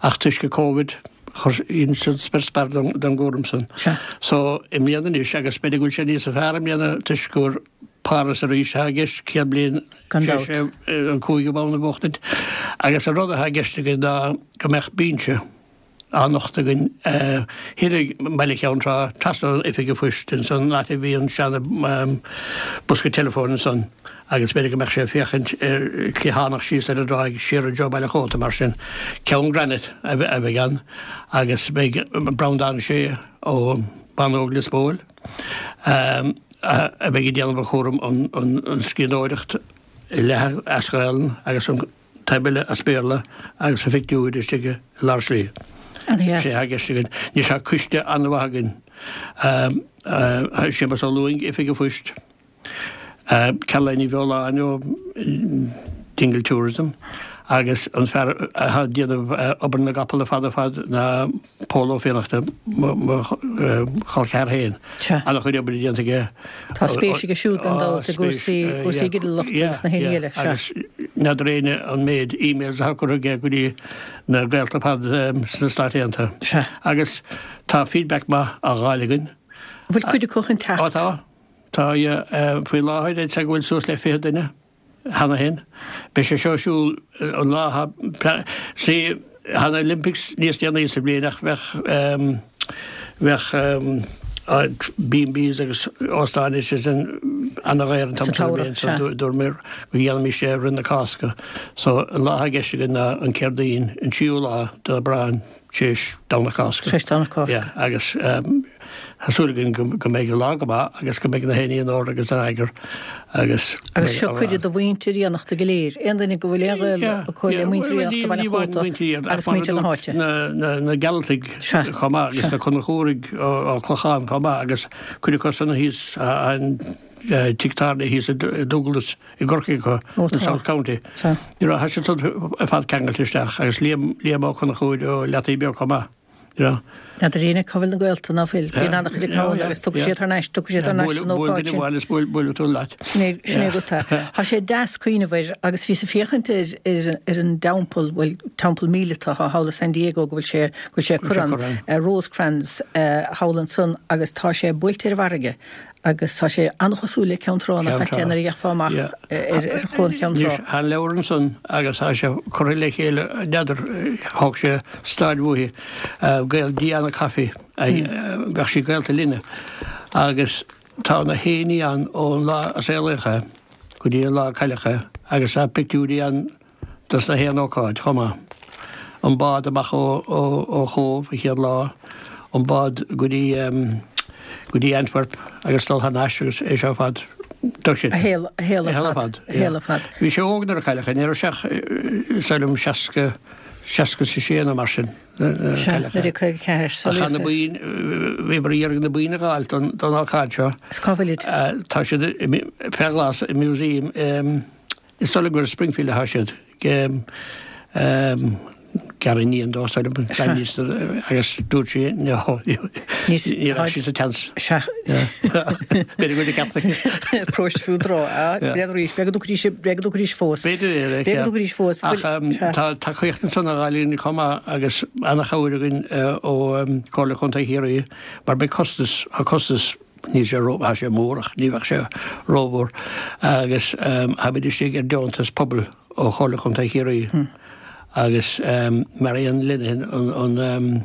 Ach toisc an Covid, chuir san spior spear don gcúram san. Sea. So, i mbliana anois, agus b'fhéidir go bhfuil sé níosa fearr i mbliana toisc gur Páras arís atá i gceist, 100 bliain Gan tar éis dabht. an cúigiú bonn a bhuachtaint. Agus an rud atá i gceist againn ná go mbeadh binse á nochtadh againn thiar i mBaile Cheann Trá, trasna ón Oifig an Phoist, ansan an áit a bhí an seana bosca teileafóin ansan agus b'fhéidir go mbeadh sé ag féachaint ar cliathánach síos ar an dtráigh siar i dtreo Baile Chóta mar sin. Ceann granite a bheidh ann agus beidh Breandán Sé ó Bánóg Lios Póil a bheidh ag déanamh an chúram an scríbhneoireacht leath as Gaelainn agus an taobh eile as Béarla agus a phictiúir istigh i lár slí. Ana-dheas. Sé atá i gceist againn. Anois tá coiste an-mhaith againn. Séamus Ó Lúing, Oifig an Phoist, Caroline Ní Bheoláin ó Dingle Tourism agus an fear atá ag déanamh obair na gcapall ar fad ar fad ná Pól Ó Fiannachta, mo chol ceathar féin. Sea. An-chuid oibre déanta aige. Tá spéis aige siúd gan dabht i gcúrsaí, cúrsaí ginealachta agus na héinne eile. Sea. Agus n'fheadar éinne an méid emails atá curtha aige go dtí na gaolta ar fad sna Stáit Aontaithe. Sea. Agus tá feedback maith á dh'fháil againn. An bhfuil cuid acu chun teacht? Ó tá. Tá, faoi láthair, I'd say go bhfuil suas le 20 duine cheana féin. Beidh sé seo ar siúl an lá atá, see, tá na Olympics níos déanaí sa bhliain ach bheadh, bheadh B&Bs agus óstáin is sin ana-dhaor an t-am Sa sin den tsamhradh, bhliain so sea. dúramar go ndéanfaimis é roimh na Cásca. So an lá atá i gceist againn ná an Céardaoin, an tríú lá d'Aibreán. Tar éis Domhnach Cásca. Tar éis Domhnach Cásca. Yeah, agus tá súil againn go mbeidh an lá go maith agus go mbeidh na héinní in ord agus in eagar agus. Agus seo cuireadh do mhuintir Fhiannachta go léir, aon duine go bhfuil aon ghaol acu le muintir Fhiannachta Bhaile Chóta agus muintir na háite. Na Gearaltaigh chomh maith agus na Conchúraigh ó Clochán chomh maith agus cuid acu san thíos an tigh tábhairne thíos i Dúglas. i gCorcaigh acu, in South County. You know, tá siad san ar fad ceangailte isteach agus Liam, Liam Ó Conchúir ó Leataoibh Beag chomh maith, you know. N'fheadar éinne cá bhfuil na gaolta, ná fuil. Bíonn an-chuid acu ann agus tiocfaidh siad thar n-ais, tiocfaidh siad thar n-ais san Buail ócáid duine sin. amháin is buail, buailfidh tú leat. Sin é, sin é rud. Tá sé deas cuimhneamh air agus bhíos ag féachaint ar, ar, ar an dteampall, bhuel, teampall míleata atá thall i San Diego go bhfuil sé, go bhfuil sé ag cur ann, Rosecrans thall ansan agus tá sé buailte ar an bhfarraige. Agus tá sé an-chosúil le Ceann Trá nach ait é nuair a gheofá amach ar Chuan Cheann Trá. Anois, tá an leabhar ansan agus tá sé curtha le chéile, n'fheadar, thóg sé staid uaithi, gaol Diana Coffey, bheadh sí gaolta linne, agus tá na héinní ann ón lá a saolaíodh é go dtí an lá a cailleadh é agus tá pictiúirí ann dos na haon ócáid chomh maith. An bád amach ó Chóbh an chéad lá, an bád go dtí go dtí Antwerp agus dul thar n-ais agus é seo ar fad. A shaol a shaol ar fad. A shaol ar fad. Bhí sé óg nuair a cailleadh é, ní raibh sé ach is dóigh liom 60, 66 nó mar sin. Sea, 1954. Ach tá na boinn, bhíomar ag iarraidh na boinn a dh'fháilt don ócáid seo. Is cá bhfuilid? Tá siad fé ghlas i museum Is dóigh liom gur i Springfield atá siad. Gariníon dó, is dóigh liom, agus dúirt sí no, ní raibh sí sa tseans. Sea. B'fhéidir go bhfuil ceart aici. Próiste fiú tráth. B'fhéidir arís, b'fhéidir go dtiocfaidís, b'fhéidir go dtiocfaidís fós. B'fhéidir é, B'fhéidir go dtiocfaidís fós. Ach tá tacaíocht ansan á fháil againn chomh maith agus ana-chabhair againn ó Chomhairle Chontae Chiarraí mar beidh costas, tá costas, Níl sé ró, tá sé mór ach ní bheadh sé rómhór agus táimid istigh ar deontas pobail ó Chomhairle Chontae Chiarraí agus Marian Linehan an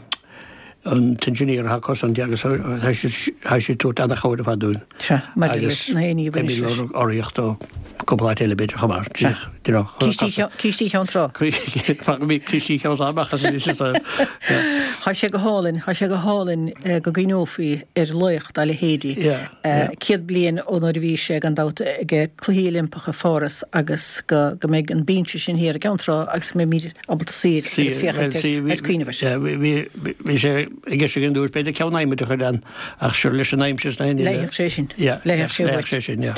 an t-engineer atá acu san agus tá sí tá sí ag tabhairt ana-chabhair ar fad dúinn. Sea, maidir leis na héinní a bhain leis. Beimid ag lorg urraíocht ó cúpla áit eile b'fhéidir chomh maith. Sea. you know. Cístí Cheann Trá. Fágfaidh mé Cístí Cheann Trá amach as anois is yeah. Tá sé go hálainn, tá sé go hálainn go gcuimhneofaí ar laoch dá leithéidí. Yeah, yeah. 100 bliain ó nuair a bhí sé gan dabht ag Cluichí Oilimpeacha Pháras agus go go mbeidh an binse sin thiar i gCeann Trá agus go mbeimid ábalta suí air agus féachaint air agus cuimhneamh air. Yeah, bhí bhí sé i gceist againn dúirt b'fhéidir ceann adhmaid a chur ann ach sure leis an aimsir is na haon Leigheadh sé sin. Yeah, Leigheadh sé leigheadh sé sin, yeah.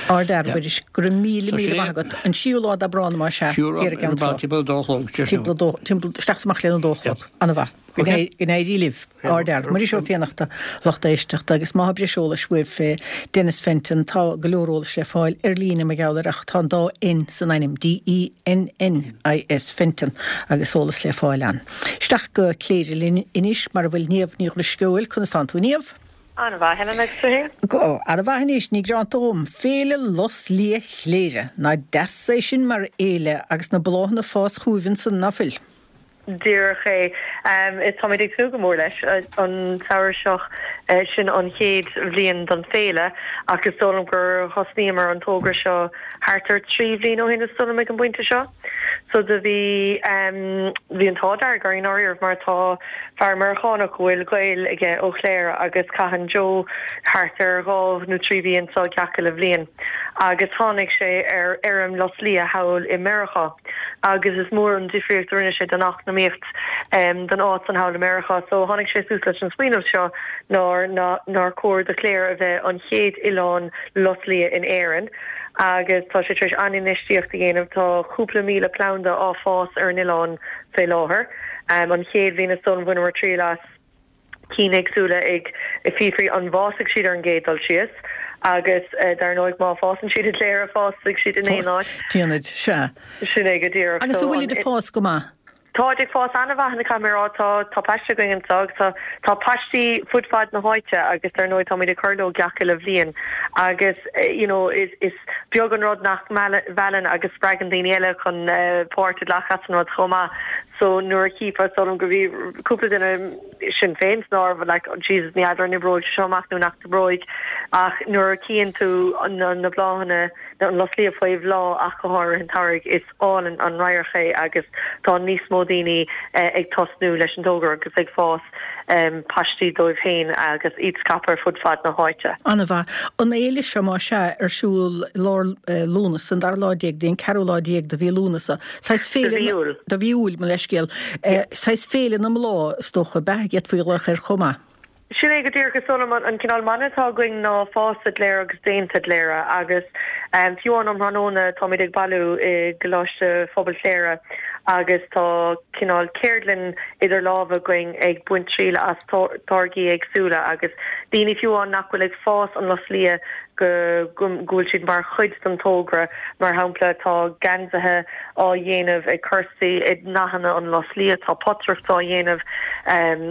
Ardfhear, a Mhuiris, go raibh míle míle maith agat. An séú lá d'Aibreán más ea, thiar i gCeann Trá. Timpeall a dó a chlog, Timpeall a dó, timpeall, isteach is amach lena dó a chlog. Ana-mhaith. Go n-éirí libh. Ardfhear. Muiris Ó Fiannachta, lucht éisteachta, agus má tá breis eolais uaibh fé Dennis Fenton, tá go leor eolais le fáil ar líne mar gheall air ach tá an dá N san ainm, D-E-N-N-I-S, Fenton, agus eolas le fáil ann. Isteach go Cléire linn anois mar a bhfuil Niamh Ní Dhrisceoil. Conas tánn tú, Niamh? An-mhaith, Helen, agus tú fhéin? Go han-mhaith anois, ní gearánta dhom. Féile Lus Liath Chléire. Nach deas é sin mar fhéile agus na bláthanna ag fás chugaibh ansan, ná fuil? Díreach é. Táimid ag tnúth go mór leis. An samhradh seo, sin an chéad bhliain don féile ach is dóigh liom gur thosnaíomar an togra seo thart ar 3 bhliain ó shin is dóigh liom ag an bpointe seo. So do bhí, bhí an t-ádh dearg orainn i ndáiríribh mar tá fear Meiriceánach a bhfuil gaol aige ó Chléire agus caitheann Joe thart ar dhá nó trí mhí anso gach uile bhliain agus tháinig sé ar fheirm lus liath thall i Meiriceá. agus is mór an difríocht a rinne sé don eacnamaíocht don áit san thall i Meiriceá. So tháinig sé suas leis an smaoineamh seo nár nár chóir do Chléire a bheith an chéad oileán lus liath in Éirinn agus tá sé tar éis an-infheistíocht a dhéanamh. Tá cúpla míle planda á fás ar an oileán fé láthair. An chéad bhliain is dóigh liom bhaineamar triail as. cinn éagsúla ag fiafraí an bhfásfaidh siad ar an gcéad dul síos agus dar ndóigh má fásann siad i gCléire fásfaidh siad in aon áit. Déanfaid, sea. Sin é go díreach. Agus an bhfuilid ag fás go maith? Táid ag fás an-mhaith, caithfidh mé a rá. Tá tá paiste againn anseo agus tá tá paistí fud fad na háite agus dar ndóigh táimid ag cur leo gach uile bhliain agus you know is is beag an rud nach meallann agus spreagann daoine eile chun páirt a ghlacadh as an rud chomh maith. So nuair a chífeá, is dóigh liom go bhí cúpla duine, sinn féin san áireamh, like oh Jesus ní fheadar an oibreoidh sé seo amach nó nach n-oibreoidh ach nuair a chíonn tú na na bláthanna, an lus liath faoi bhláth ach go háirithe an tsamhraidh, is álainn an radharc é agus tá níos mó daoine ag tosnú leis an dtogra agus ag fás paistí dóibh féin agus iad scaipthe ar fud fad na háite. An-mhaith. An fhéile seo, más ea, ar siúl i lár Lúnasa, an dara lá déag dtí an ceathrú lá déag de mhí Lúnasa. Saghas féile. De mhí Iúil. De mhí Iúil, mo leithscéal. Saghas féile na mbláth, is dócha, ab ea, d'fhéadfaí a ghlaoch air chomh maith. Sin é go díreach. Is dóigh liom an cineál mana atá againn ná fás i gCléire agus déanta i gCléire agus fiú amháin um thráthnóna táimid ag bailiú i gColáiste Phobail Chléire agus tá cineál ceardlann idir lámha againn ag baint triail as táirgí éagsúla agus daoine fiú amháin nach bhfuil ag fás an lus liath go bhfuil siad mar chuid den togra. Mar shampla, tá geansaithe á dhéanamh ag Kirsty i ndathanna an lus liath, tá potaireacht á dhéanamh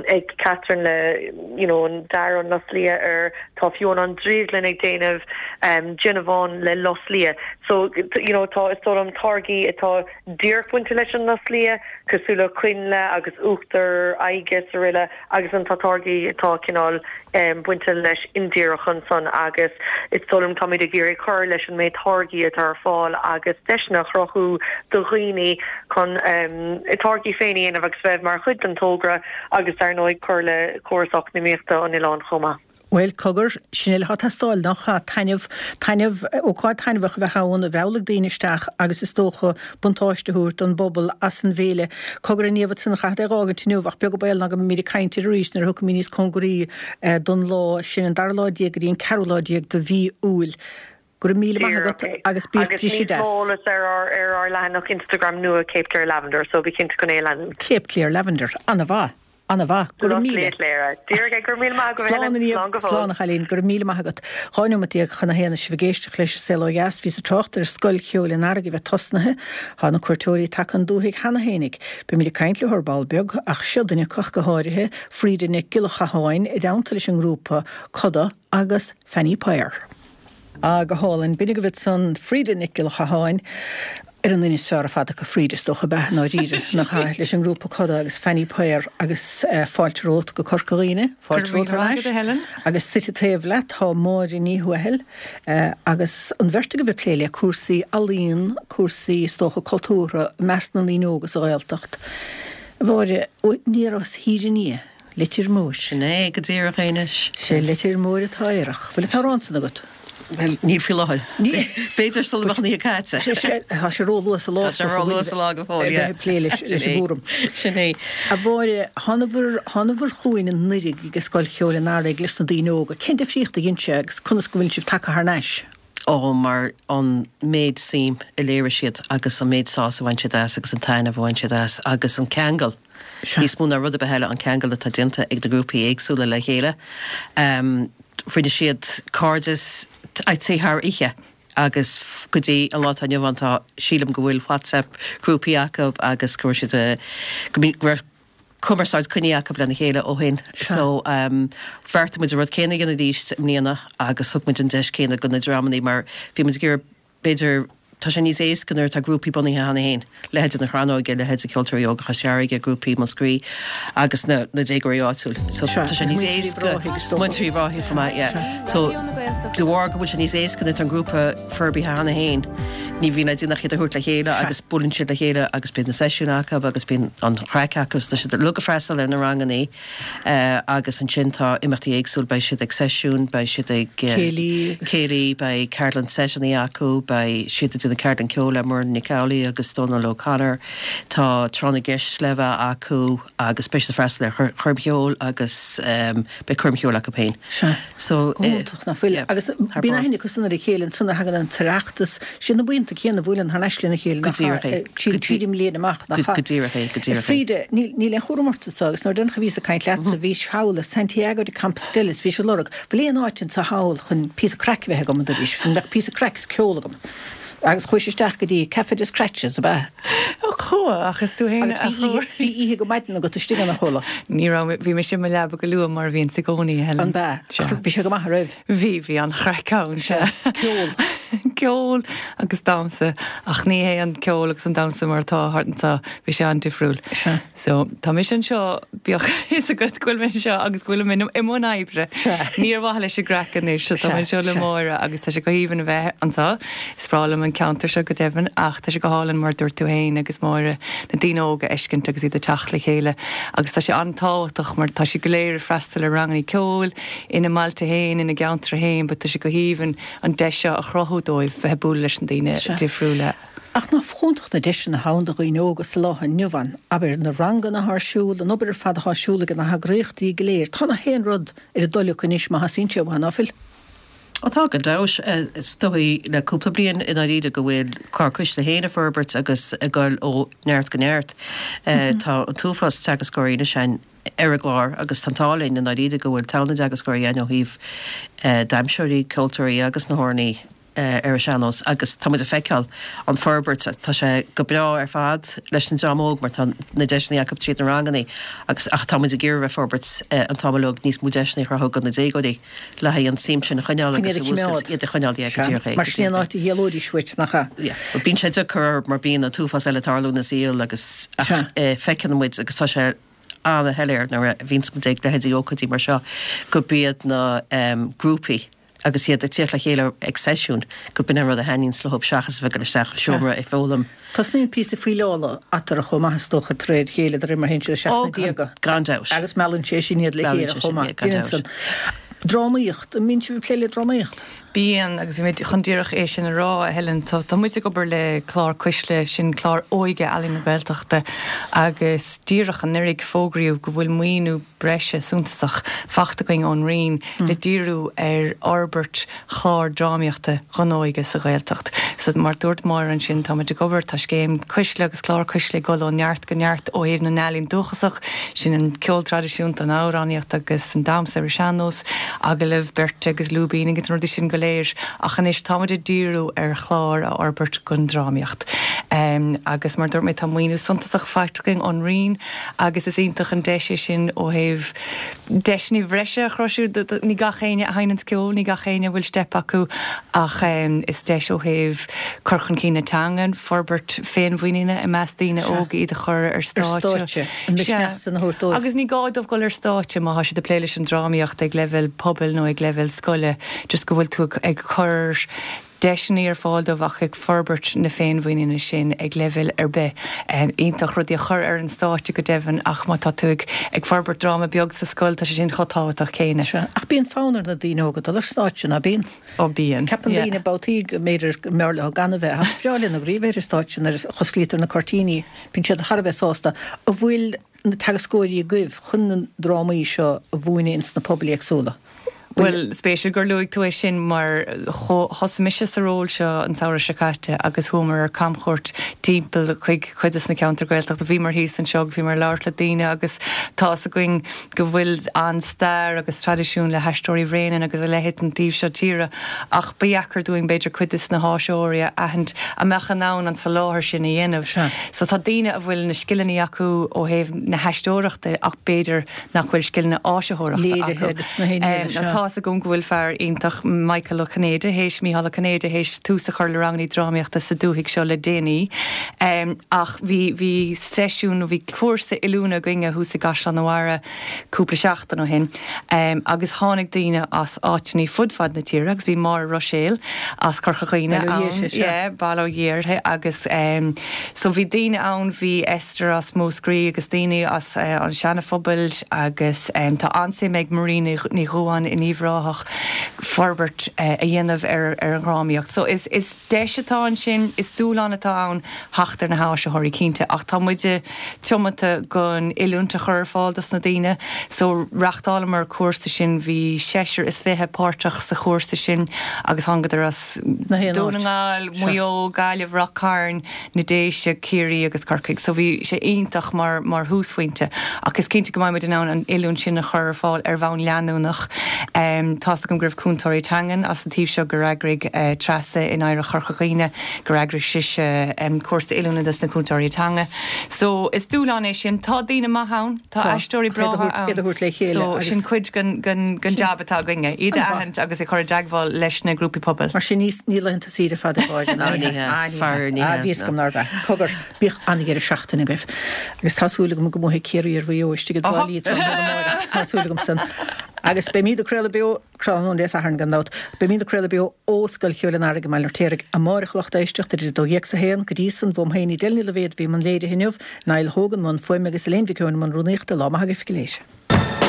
ag Catherine le you know an dath an lus liath air, tá fiú amháin an drioglann ag déanamh déanamhán le lus liath. So you know tá is dóigh liom táirgí atá díreach bainte leis an lus liath, cosúil le coinnle agus uachtar aghaidhe is aroile agus ansan tá táirgí atá cineál bainte leis indíreach ansan agus is dóigh liom táimid ag iarraidh cur leis an méid táirgí atá ar fáil agus deiseanna a chruthú do dhaoine chun a dtáirgí féin a dhéanamh agus bheith mar chuid den togra agus dar ndóigh cur le córas eacnamaíochta an oileáin chomh maith. Bhuel, cogar, sin uile atá ag teastáil, nach ea? Taitneamh, taitneamh, ócáid taitneamhach a bheith ann, a mheallfaidh daoine isteach agus is dócha buntáiste a thabhairt don bpobal as an bhféile. Cogar, a Niamh, ansan, chaithfead é a dh'fhágaint inniu ach beag an baol ná go mbeimid ag caint air arís nuair a thiocfaimid níos cóngaraí don lá sin, an dara lá déag go dtí an ceathrú lá déag de mhí Iúil. Go raibh míle maith agat agus bíodh Agus briseadh níos deas. mó eolas ar ár ar ár leathanach Instagram nua Cape Clear Lavender, so bí cinnte chun é a leanúint. Cape Clear Lavender. Ana-mhaith. Ana-mhaith. Go raibh míle. Cléire. Díreach é. Go raibh míle maith agat, Slán Helen. a Niamh. Slán go fóill. Slán a chailín. Go raibh míle maith agat. 12 neomat chun a haon is sibh ag éisteacht leis an Saol Ó Dheas. Bhíos ag trácht ar Scoil Cheoil an Earraigh a bheith tosnaithe. Tá na cuairteoirí tagtha 'on dúthaigh cheana fhéinig. Beimid ag caint leo ar ball beag, ach seo duine acu ach go háirithe, Frida Nic Giolla Chatháin, i dteannta leis an ngrúpa Coda agus Fanny Power. Ah, go hálainn. B'in agaibh ansan Frida Nic Giolla Chatháin. Ar an duine is fearr ar fad acu fríd, is dócha, ab ea, i ndáiríre, nach ea, leis an ngrúpa Coda agus Fanny Paor agus fáilte romhat go Corca Dhuibhne, fáilte romhat thar n-ais. Agus suite taobh leat tá Máire Ní Thuathail agus an bheirt agaibh ag plé le cúrsaí ealaíon, cúrsaí, is dócha, cultúrtha i measc na ndaoine óga sa Ghaeltacht. A Mháire, aniar as Thír an Fhia. Leitir Móir. Sin é go díreach é anois. Sé Leitir Móir atá aerach. Bhfuil an t-amhrán san agat? Bhuel, níl faoi láthair. B'fhéidir sula mbeadh an oíche caite. Tá sé róluath sa lá. Tá sé róluath sa lá go fóill, yeah. A bheith ag plé leis an gcúram. Sin é. A Mháire, thánabhair, thánabhair chugainn anuraidh ag Scoil Cheoil an Earraigh leis na daoine óga. Cén difríocht a dhein sé agus conas go bhfuil sibh tagtha thar n-ais? Ó, mar an méid suim a léirigh siad agus an méid sásamh a bhain siad as agus an taitneamh a bhain siad as agus an ceangal, níos mó ná rud ar bith eile, an ceangal atá déanta ag na grúpaí éagsúla le chéile. Rinne siad cairdeas, I'd say thar oíche agus go dtí an lá atá inniu ann tá, sílim go bhfuil WhatsApp grúpaí acu agus go raibh siad, go raibh, cumarsáid coinnithe acu lena chéile ó shin. So bheartaigh muid an rud céanna a dhéanamh arís i mbliana agus thug muid an deis céanna do na dreamannaí mar bhí muid ag iarraidh b'fhéidir tá sé níos éasca nuair atá grúpaí bunaithe cheana féin, leithéide na Crannóige, leithéide Ceoltóirí Óga Chois Fharraige, grúpaí Mhúscraí agus na na déagóirí áitiúil. So tá sé níos éasca Múinteoirí Uíbh Ráthaigh chomh maith, yeah. So de bharr go bhfuil sé níos éasca nuair atá an grúpa forbartha cheana féin. Ní bhíonn le déanamh ach iad a thabhairt le chéile agus buaileann siad le chéile agus bíonn na seisiúin acu agus bíonn an chraic acu. Tá siad uilig ag freastal ar na rangannaí agus ansin tá imeachtaí éagsúil, beidh siad ag seisiún, beidh siad ag céilí, céilí, beidh ceardlann seiteannaí acu, beidh siad ag déanamh ceardlann ceoil le Muireann Nic Amhlaoibh agus Dónal O'Connor, tá tráth na gceist le bheith acu agus beidh siad ag freastal ar choirm cheoil agus beidh coirm cheoil acu féin. Sea. So, Go hiontach, nach bhfuil? Agus bíonn aithne acu san ar a chéile ansan nuair a thagann an tOireachtas, siad na buíonta céanna a bhuaileann thar n-ais lena chéile, Go díreach é. Tríd tríd an mbliain amach, nach ea? Go díreach é, go díreach é. A Frida, níl níl aon chúram ort anso agus nuair a deireanach a bhíos ag caint leatsa, bhís thall i Santiago de Compostela is bhís ag lorg, bhfuil aon áit anso thall chun píosa craic a bheith agam, a dúraís, go mbeadh píosa craic is ceol agam. Agus chuais isteach go dtí Café des Creates, ab ea? Ó chuaigh, ach is tú fhéin a threoraigh. Agus bhí oíche go maidin agat istigh ann, a chuala. Ní raibh, bhí mise i mo leaba go luath mar a bhíonns i gcónaí, a Helen. An b'ea? Sea. Bhí sé go maith, an raibh? Bhí, bhí an-chraic ann, sea. Ceol. Ceol agus damhsa, ach ní hé an ceol agus an damhsa mar atá thart anseo, bhí sé an-difriúil. Sea. So, tá mise anseo, bíodh a fhios agat go bhfuil mé anseo agus go bhfuilim i mbun oibre. Sea. Ní ar mhaithe leis an gcraic anois, so tá mé anseo le Máire agus tá sé go haoibhinn a bheith anseo. Is breá liom an ceantar seo go deimhin ach tá sé go hálainn mar a dúirt tú féin agus Máire, na daoine óga a fheiscint agus iad ag teacht le chéile agus tá sé an-tábhachtach mar tá siad go léir ag freastal ar ranganna ceoil ina mbailte féin, ina gceantair féin but tá sé go haoibhinn an deis seo a chruthú dóibh bheith ag bualadh leis na daoine difriúla. Ach nach iontach na deiseanna atá ann do dhaoine óga sa lá inniu ann, abair, na ranganna atá ar siúl, an obair ar fad atá ar siúl ag na heagraíochtaí go léir. Tá na haon rud ar a dtoil acu anois má theastaíonn sé uathu, ná fuil? Ó tá, gan dabht. Is dóigh le cúpla bliain i ndáiríre go bhfuil Clár Cuisle féin ag forbairt agus ag dul ó neart go neart. Tá an t-uafás teagascóirí anois ann ar an gclár agus tá an t-ádh linn i ndáiríre go bhfuil togha na dteagascóirí ann ó thaobh damhsóirí, ceoltóirí agus na hamhránaí. ar an sean-nós agus tá muid ag feiceáil an forbairt, tá sé go breá ar fad leis an dream óg mar tá na deiseanna acu tríd na ranganna agus ach tá muid ag iarraidh bheith forbairt an t-am uilig níos mó deiseanna a chruthú do na déagóirí le haghaidh an tsuim sin a choinneáil agus a mhúscailt, iad a choinneáil, yeah, go díreach é. Mar sin é an áit a d'éalóidís uait, nach ea? Yeah, bíonn sé deacair orthu mar bíonn an t-uafás eile ag tarlú ina saol agus ach feiceann muid agus tá sé ana-shoiléir nuair a bhíonns muid ag leithéidí ócáidí mar seo gurb iad na grúpaí agus iad ag tíocht le chéile ag seisiún, gurb in an rud a thaitníonns leo seachas a bheith ag dul isteach i seomra ag foghlaim. Tosnaíonn píosa fuíleála eatarthu chomh maith is dócha de réir a chéile de réir mar a théann siad isteach sna déaga. Gan dabht. Agus meallann sé sin iad le chéile chomh maith. Meallann sé sin iad, gan dabht. Drámaíocht, an mbíonn sibh ag plé le drámaíocht? Bíonn, agus bhí mé chun díreach é sin a rá, a Helen. Tá muid ag obair le Clár Cuisle, sin clár óige Ealaín na Gaeltachta, agus díreach anuraidh fógraíodh go bhfuil maoiniú breise suntasach faighte againn ón Roinn le díriú ar fhorbairt chlár drámaíochta don óige sa Ghaeltacht. So, mar dúirt Máire ansin, tá muid ag obair, tá scéim Cuisle agus clár Cuisle ag dul ó neart go neart ó thaobh na n-ealaíon dúchasach, sin an ceol traidisiúnta, an amhránaíocht agus an damhsa ar an sean-nós, agallamh beirte agus lúibín agus na rudaí sin go léir. Ach anois tá muid ag díriú ar chlár a fhorbairt don drámaíocht. Agus mar dúirt mé, tá maoiniú suntasach faighte againn ón Roinn, agus is iontach an deis é sin ó thaobh deiseanna bhreise a chruthú. Ní gach éinne a sheinneanns ceol, ní gach éinne a bhfuil steip acu ach is deis ó thaobh. cur chun cinn na teangan, forbairt féinmhuiníne i measc daoine óga, iad a chur ar stáitse. An misneach san a thabhairt dóibh. Agus ní gá dóibh dul ar stáitse má tá siad ag plé leis an drámaíocht ag leibhéal pobail nó ag leibhéal scoile, just go bhfuil tú ag cur deiseanna ar fáil dóibh ach ag forbairt na féinmhuiníne sin ag leibhéal ar bith. Iontach rudaí a chur ar an stáitse go deimhin ach má tá tú ag ag forbairt dráma beag sa scoil tá sé sin chomh tábhachtach céanna. Sea, ach bíonn fonn ar na daoine óga dul ar stáitse, ná bíonn? Ó bíonn, Ceapann yeah. daoine babhtaí go mb'fhéidir go mb'fhearr leo gan a bheith ach is breá lena gcroí a bheith ar an stáitse nuair a osclaítear na cuirtíní, bíonn siad thar a bheith sásta. An bhfuil na teagascóirí agaibh chun na drámaí seo a mhúineadh ins na pobail éagsúla? Bhuel, spéisiúil gur luaigh tú é sin mar thosaigh mise sa ról seo an samhradh seo caite agus chuamar ar camchuairt timpeall chuig cuid des na ceantair Gaeltachta. Bhíomar thíos anseo agus bhíomar ag labhairt le daoine agus tá fhios againn go bhfuil an-stair agus traidisiún le hAisteoirí Bhréanainn agus a leithéid an taobh seo tíre ach ba dheacair dúinn b'fhéidir cuid des na háisitheoirí a aithint a mbeadh in ann an soláthar sin a dhéanamh. So tá daoine a bhfuil na scileanna acu ó thaobh na haisteoireachta ach b'fhéidir nach bhfuil scileanna áisitheoireachta acu. Tá fhios agam go bhfuil fear iontach, Michael Ó Cinnéide, théis, Mícheál Ó Cinnéide, théis tús a chur le rangannaí drámaíochta sa dúthaigh seo le déanaí. Ach bhí, bhí seisiún nó bhí cúrsa oiliúna againne thuas i gCaisleán an Bharraigh cúpla seachtain ó shin agus tháinig daoine as áiteannaí fud fad na tíre agus bhí Máire Ruiséal as Corca Dhuibhne ann, yeah, bail ó Dhia uirthi agus so bhí daoine ann, bhí Esther as Múscraí agus daoine as an Seana Phobal agus tá an-suim ag Marie Ní Dhubháin in Uíbh Ráthach forbairt a dhéanamh ar an dhrámaíocht. So is is deis atá ansin, is dúshlán atá ann theacht ar na háisitheoirí cinnte ach tá muide tiomanta gon oiliúint a chur ar fáil dos na daoine. So reachtáileamar cúrsa sin, bhí seisear is fiche páirteach sa chúrsa sin agus thángadar as Dún na nGall, Maigh Eo, Gaillimh, Ráth Cairn, na Déise, Ciarraí agus Corcaigh. So bhí sé iontach mar mar thúsphointe ach is cinnte go mbeidh muid in ann an oiliúint sin a chur ar fáil ar bhonn leanúnach. Tá's agam go raibh cúntóirí teangan as an taobh seo gur eagraigh Treasa in Oidhreacht Chorca Dhuibhne gur eagraigh sise cúrsa oiliúna dos na cúntóirí teanga. So is dúshlán é sin. Tá daoine maithe ann. Tá aisteoirí breátha ann. Iad a thabhairt le chéile So sin cuid den den jab atá againne, iad a aithint agus a chur i dteagmháil leis na grúpaí pobail. Mar sin ní laethanta saoire fada gáire ná ní hea. Ní hea, faraor ní hea. Bhí fhios agam nárbh ea. Cogar, bíodh an-dheireadh seachtaine agaibh. Agus tá súil agam go mbuafaidh Ciarraí ar Mhaigh Eo istigh i dTrá Lí tráthnóna amárach. Tá súil agam san. Agus beimid ag craoladh beo. Tráthnóna Dé Sathairn gan dabht. Beimid ag craoladh beo ó Scoil Cheoil an Earraigh i mBaile an Fheirtéaraigh amárach a lucht éisteachta idir 12 's 1. Go dtí san, bhuam féin Edel Ní Loibhéad a bhí i mbun léirithe inniu, Niall Hogan i mbun fuaime agus Elaine Mhic Eoin i mbun rúnaíochta. Lá maith agaibh go léir.